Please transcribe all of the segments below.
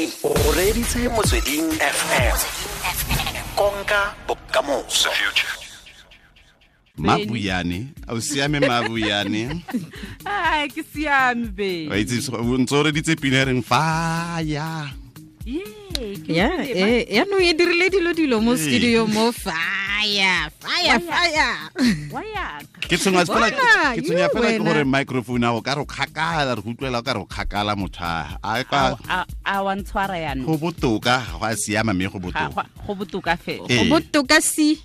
O reditse Motsweding FM. Konka bokamoso. Mabuyane, a o siame Mabuyane? Ai, ke siame be. Wa itse o ntse o reditse pina e reng fire. Yeah, Ya, yaanong e dirile dilo mo studio mo fire, fire, fire. Ke tshwenya fela Bona, ke tshwenya you fela ke wena. gore microphone a go ka re o kgakala, re go utlwela o ka re o kgakala motho a a ka A wa ntshwara yaanong. Go botoka, ga go a siama mme go botoka. Go botoka fela. Ee. Go botoka si.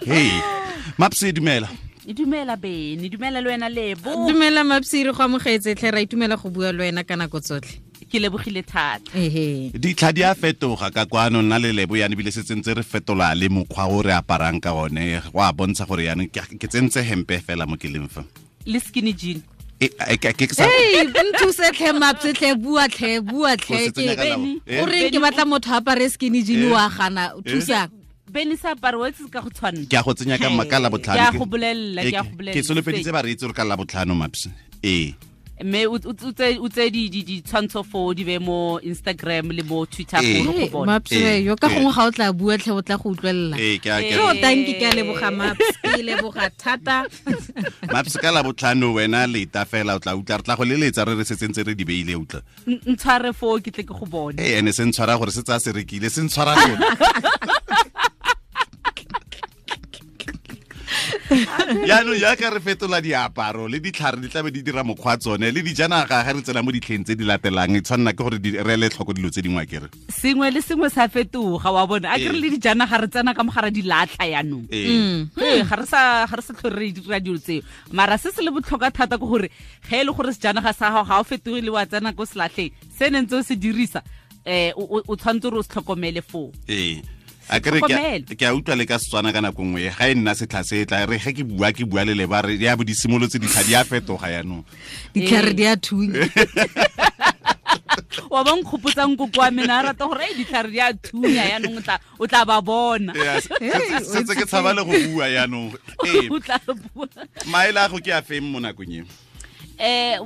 Hey, Mapse, dumela. E dumela Bene, dumela le wena Lebo. Dumela Mapse, re go amogetse tlhe, ra itumela go bua le wena ka nako tsotlhe. Ke lebogile thata. Ehe. Ditlha di a fetoga ka kwano, nna le Lebo yana ebile se tsentse re fetola le mokgwa o re aparang ka one, go a bontsha gore yana ke tsentse hempe fela mo ke leng fa. Le skinny jean. E, ke sa Hey, nthuse tlhe Mapse tlhe, bua tlhe, bua O tlhe. se tsenya ka labo. O reng ke batla motho a apare skinny jean wa gana, thusang. Bene sa apare wa itse ka go tshwanna. Ke a go tsenya ka ka Labotlhano. Ke a go bolella, ke a go bolella. Ke solofeditse bareetsi gore ka Labotlhano, Mapse. Ee. Mme o tse ditshwantsho foo di be mo Instagram le mo Twitter Ee. gore go bona. Mapse, yo ka gongwe ga o tla bua tlhe o tla go utlwelela. Ee, ke a ke Yo, thank you, ke a leboga Mapse, ke leboga thata. Mapse, ka Labotlhano wena leta fela o tla utlwa, re tla go leletsa re re se tsentse re di beile, utlwa. Ntshware foo ke tle ke go bone. Ee, ene se ntshwara gore se tsaya se rekile, se ntshwara lona. Yaanong jaaka re fetola diaparo le ditlhare di tlabe di dira mokgwa tsone le dijanaga, ga re tsena mo ditlheng tse di latelang e tshwanela ke gore re ele tlhoko dilo tse dingwe akere. Sengwe le sengwe sa fetoga wa bona. A ke re le dijanaga re tsena ka mogara di latlha yaanong. Ee. Ee, ga re sa tlhole re dira dilo tseo. Mara se se le botlhokwa thata ke gore ge e le gore sejanaga sa gago ga o fetoge le wa tsena ko selatlheng, se ne ntse o se dirisa, o tshwanetse gore o se tlhokomele foo. Ee. A kere ke a utlwa le ka Setswana ka nako nngwe ga e nna setlha se tla re ge ke bua ke bua le leba re ya bo di simolotse ditlha di a fetoga yaanong. Ditlhare di a thunya. Wa ba nkgopotsang koko wa mena a rata gore, "Ei, ditlhare di a thunya yaanong o tla ba bona." Ee, setse ke tshaba le go bua yaanong. Ee. O tla bua. Maele a go ke a feng mo nakong e?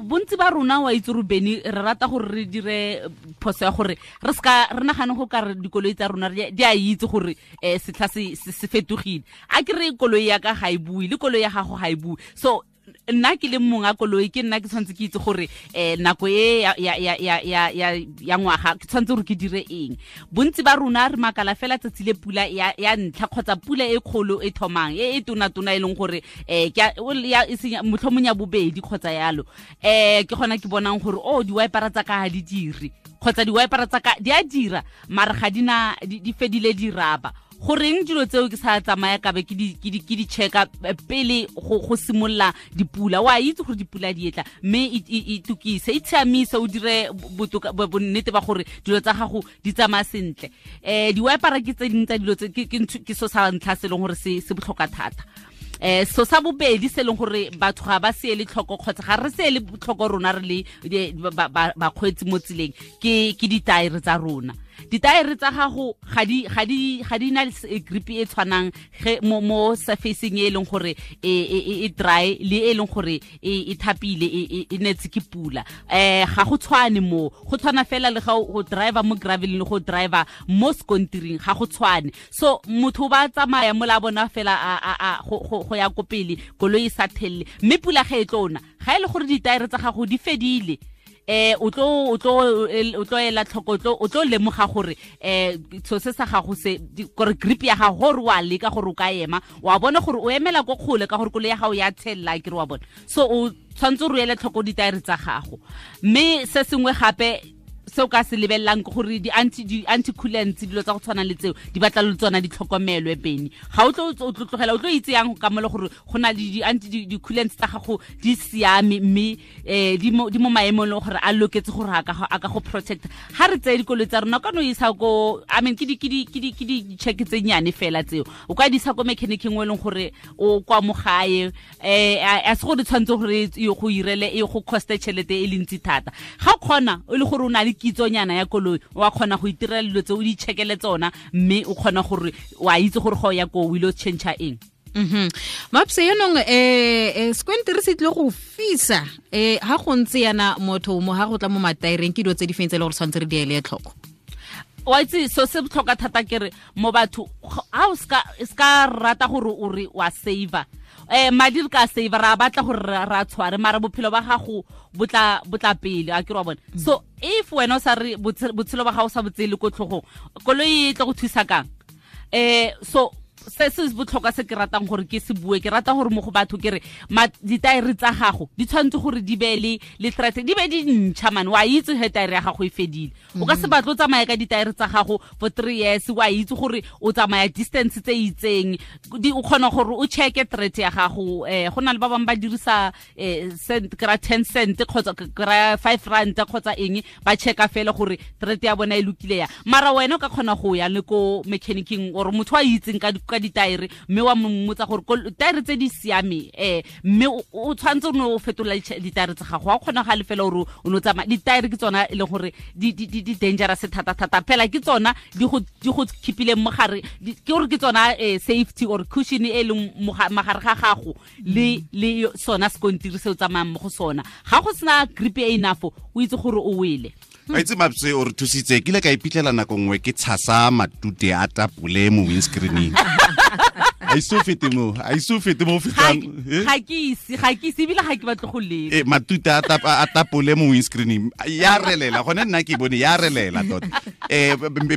Bontsi ba rona wa itse gore Bene re rata gore re dire phoso ya gore re seka re nagane go ka re dikoloi tsa rona di a itse gore, setlha se fetogile. A ke re koloi ya ka ga e bue le koloi ya gago ga e bue. So nna ke le mong a koloi ke nna ke tshwanetse ke itse gore, nako e ya ngwaga ke tshwanetse gore ke dire eng. Bontsi ba rona re makala fela tsatsi le pula ya ntlha kgotsa pula e kgolo e thomang e e tona-tona e leng gore, ke a, o le ya, e senya, motlhomong ya bobedi kgotsa yalo. Ke gona ke bonang gore, oh, di-wipera tsa ka ga di dire kgotsa di-wipera tsa ka di a dira mara ga di na, di fedile di raba. Goreng dilo tseo ke sa tsamaya ka be ke di checka pele go simolola dipula. Wa itse gore dipula di etla, mme e tukise, e tshiamise, o dire bonnete ba gore dilo tsa gago di tsamaya sentle. Di-wipera ke tse dingwe tsa dilo tse, ke so sa ntlha se e leng gore se botlhokwa thata. So sa bobedi se leng gore batho ga ba se ele tlhoko kgotsa ga re se ele tlhoko rona re le bakgweetsi mo tseleng, ke ditaere tsa rona. Ditaere tsa gago ga di na grip e tshwanang ge mo surfacing e leng gore e dry le e leng gore e thapile, e netse ke pula. Ga go tshwane mo, go tshwana fela le ga o driver mo gravel le go driver mo sekontiring, ga go tshwane. So motho ba tsamaya mola bona fela go ya ko pele, koloi e sa thelle, mme pula ge e tlo na, ga e le gore ditaere tsa gago di fedile, o tlo ela tlhoko, o tlo lemoga gore, so se sa gago se, di, gore grip ya gago, gore wa leka gore o ka ema, wa bona gore o emela ko kgole ka gore koloi ya gago ya tshella, ke re wa bona. So o tshwanetse o ele tlhoko ditaere tsa gago. Mme se sengwe gape se o ka se lebellang ke gore di anti-coolants, dilo tsa go tshwana le tseo, di batla le tsona di tlhokomelwe, Bene. Ga o tlo, o tlo tlogela, o tlo itse yang ka mole gore go na le di coolants tsa gago di siame, mme, di mo maemong le gore a loketse gore a ka go protect. Ha re tseye dikoloi tsa rona, o ka no isa ko, I mean, ke di, ke di, ke di, ke di check tse nnyane fela tseo. O ka di isa ko mechanic-eng o e leng gore o kwa mo gae, a se gore tshwanetse gore e go irele, e go coste tšhelete e le ntsi thata. Ga o kgona, o le gore o na le kitsonyana ya koloi, wa kgona go itirela dilo tse o di checkele tsona, mme o kgona gore wa itse gore ga o ya ko o ile o change-a eng. Mapse yanong sekontiri se tlile go fisa ha go ntse yana motho mo ha go tla mo mataereng ke dilo tse di feng tse e le gore tshwanetse re di ele tlhoko? Wa itse so se botlhokwa thata ke re mo batho ha o ska rata gore o re wa saver madi re ka saver ra batla gore ra tshware mara bophelo ba gago botla pele a ke re wa bona. So if wena o sa re botshelo ba gago sa botsele ko tlhogong, koloi e tlo go thusa kang? So se se botlhokwa se ke ratang gore ke se bue, ke rata gore mo go batho ke re ditaere tsa gago di tshwanetse gore di be le threat, di be di ntšha man. Wa itse he taere ya gago e fedile, o ka se batle o tsamaya ka ditaere tsa gago for 3 years, wa itse gore o tsamaya distance tse itseng, o kgona gore o checke threat ya gago. Go na le ba bangwe ba dirisa cent kra 10 cent kgotsa kra 5 rand kgotsa eng, ba checka fela gore threat ya bona e lokile ya. Mara wena o ka kgona go ya le ko mechanicing or motho a itseng ka ditaere, mme wa mmotsa gore taere tse di siame, mme o tshwanetse o ne o fetola ditaere tsa gago. Wa kgona ga le fela gore o ne o tsamaya ditaere ke tsona e leng gore di dangerous thata thata fela, ke tsona di go keepileng mogare, ke gore ke tsona safety or cushion e leng mogare ga gago le sona sekontiri se o tsamayang mo go sona. Ga go sena grip e enough, o itse gore o wele. A itse Mapse o re thusitse, ke ile ka iphitlhela nako nngwe ke tshasa matute a tapole mo windscreening. A iso fete mo fetang. Ga ke ise ebile ga ke batle go leka. Matute a tapole mo windscreening ya relela, gone nna ke bone ya relela tota.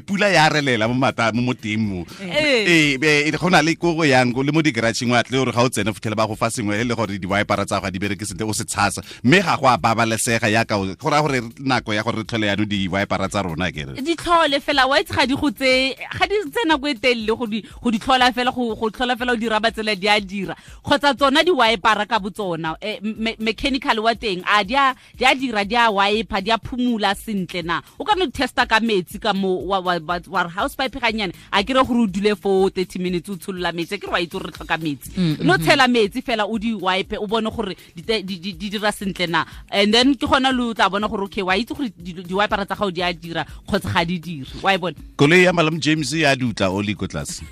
Pula ya relela mo mata mo teng mo. Go na le ko go yang le mo di-garageng wa tle gore ga o tsene fitlhele ba go fa sengwe e le gore di-wipera tsa go di bereke sentle o se tshasa, mme ga go a babalesega yaka go raya gore nako ya gore re tlhole yaanong di-wipera tsa rona ke re di tlhole fela. Wa itse ga di go tse ga di tse nako e telele go di tlhola fela, go tlhola fela o dira ba tsela di a dira, kgotsa tsona di wipera ka botsona. Mechanical wa teng a di a dira, di a wiper, di a phumula sentle na. O ka no testa ka metsi ka mo wa house pipe ganyane, a ke re gore o dule for 30 minutes o tsholola metsi, ke re wa itse gore re tlhoka metsi, no tshela metsi fela o di wipe o bone gore di dira sentle na, and then ke gona lo tla bona gore okay wa itse gore di wipera tsa gago di a dira kgotsa ga di dire. Wa e bona koloi ya Malome James ya dutla oli ko tlase.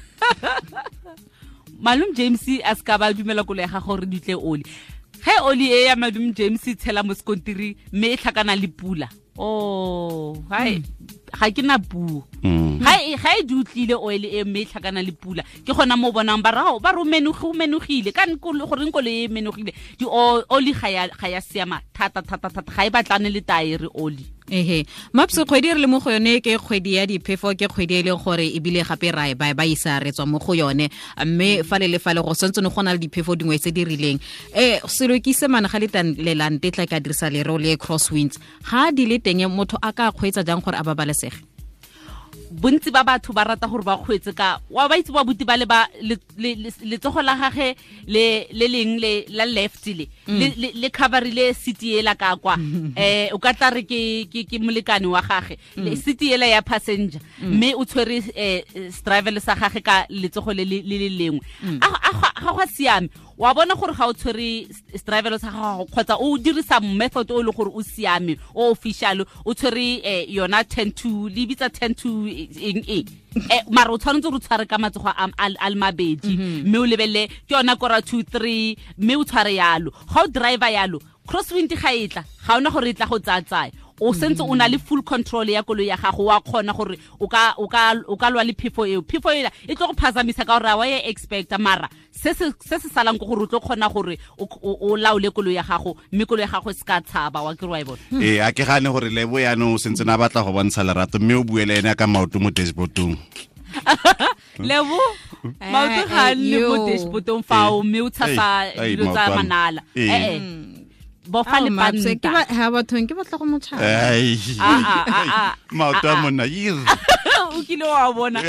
Malome James a ska ba dumela koloi ya gagwe gore di tle oli. Ge oli e ya Malome James e tshela mo sekontiri mme e tlhakana le pula, oh hai ga ke na puo. Ga e dutlile oil e mme e tlhakana le pula, ke gona mo bonang ba rao ba re menogile ka goreng koloi e menogile. Di oli ga ya siama thata thata thata, ga e batlane le taere oli. Ehe Mapse, kgwedi re le mo go yone ke kgwedi ya diphefo, ke kgwedi e leng gore ebile gape ra e ba isa re tswa mo go yone, mme fale le fale go santse go na le diphefo dingwe tse di rileng. Selo ke se mana ga le lelante tla ka dirisa lereo le crosswinds, ga di le teng motho a ka kgweetsa jang gore a babalesege? Bontsi ba batho ba rata gore ba kgweetse ka wa ba itse ba buti ba le ba letsogo la gage le leng le la left le le coverile seat ela ka kwa, o ka tla re ke molekane wa gage le seat ela ya passenger, mme o tshwere driver sa gage ka letsogo le le lengwe. A ga siame, wa bona gore ga o tshwere driver sa gago kgotsa o dirisa method o le gore o siame o official, o tshwere yona 10 to le bitsa 10 to eng eng, mara o tshwanetse gore o tshware ka matsogo a le mabedi, mme o lebelele ke yona kora 2 3, mme o tshware yalo. Ga o driver yalo, crosswind ga e tla, ga ona gore e tla go tsaya, o sentse o na le full control ya koloi ya gago, wa kgona gore o ka lwa le phefo eo. Phefo ela e tlo go phazamisa ka gore wa e expecta, mara se se salang ke gore o tlo kgona gore o laole koloi ya gago, mme koloi ya gago e se ka tshaba. Wa ke re wa e bona. A ke gane gore Lebo yaanong o sentse na batla go bontsha lerato, mme o bue le ene ka maoto mo dashboardong. Lebo maoto ga nne mo dashboardong fao, mme o tshasa dilo tsa manala. Bofa le panta. Ke ba ha bathong ke batla go motshaba. Maoto a monna yir. O kile wa bona.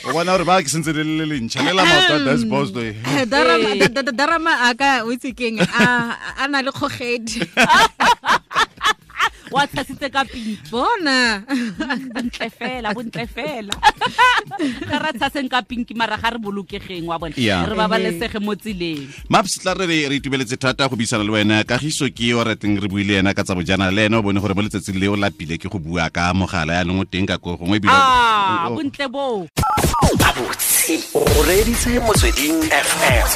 O bona gore ba ke sentse le le lentšha le la maoto a dashboard. Darama a ka o itse keng a na le kgogedi. Wa tshasitse ka pinki. Bona. Bontle fela, bontle fela. Ga ra tshaseng ka pinki mara ga re bolokegeng wa bona. Re babalesege mo tseleng. Maps tla re re itumeletse thata go buisana le wena. Kagiso ke o rateng re buile ena ka tsa bojana le ena o bone gore mo letsatsing le o lapile ke go bua ka mogala ya nong o teng ka ko gongwe ebile. Bontle bo. Gabotse o reditse Motsweding FM,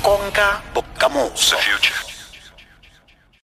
konka bokamoso.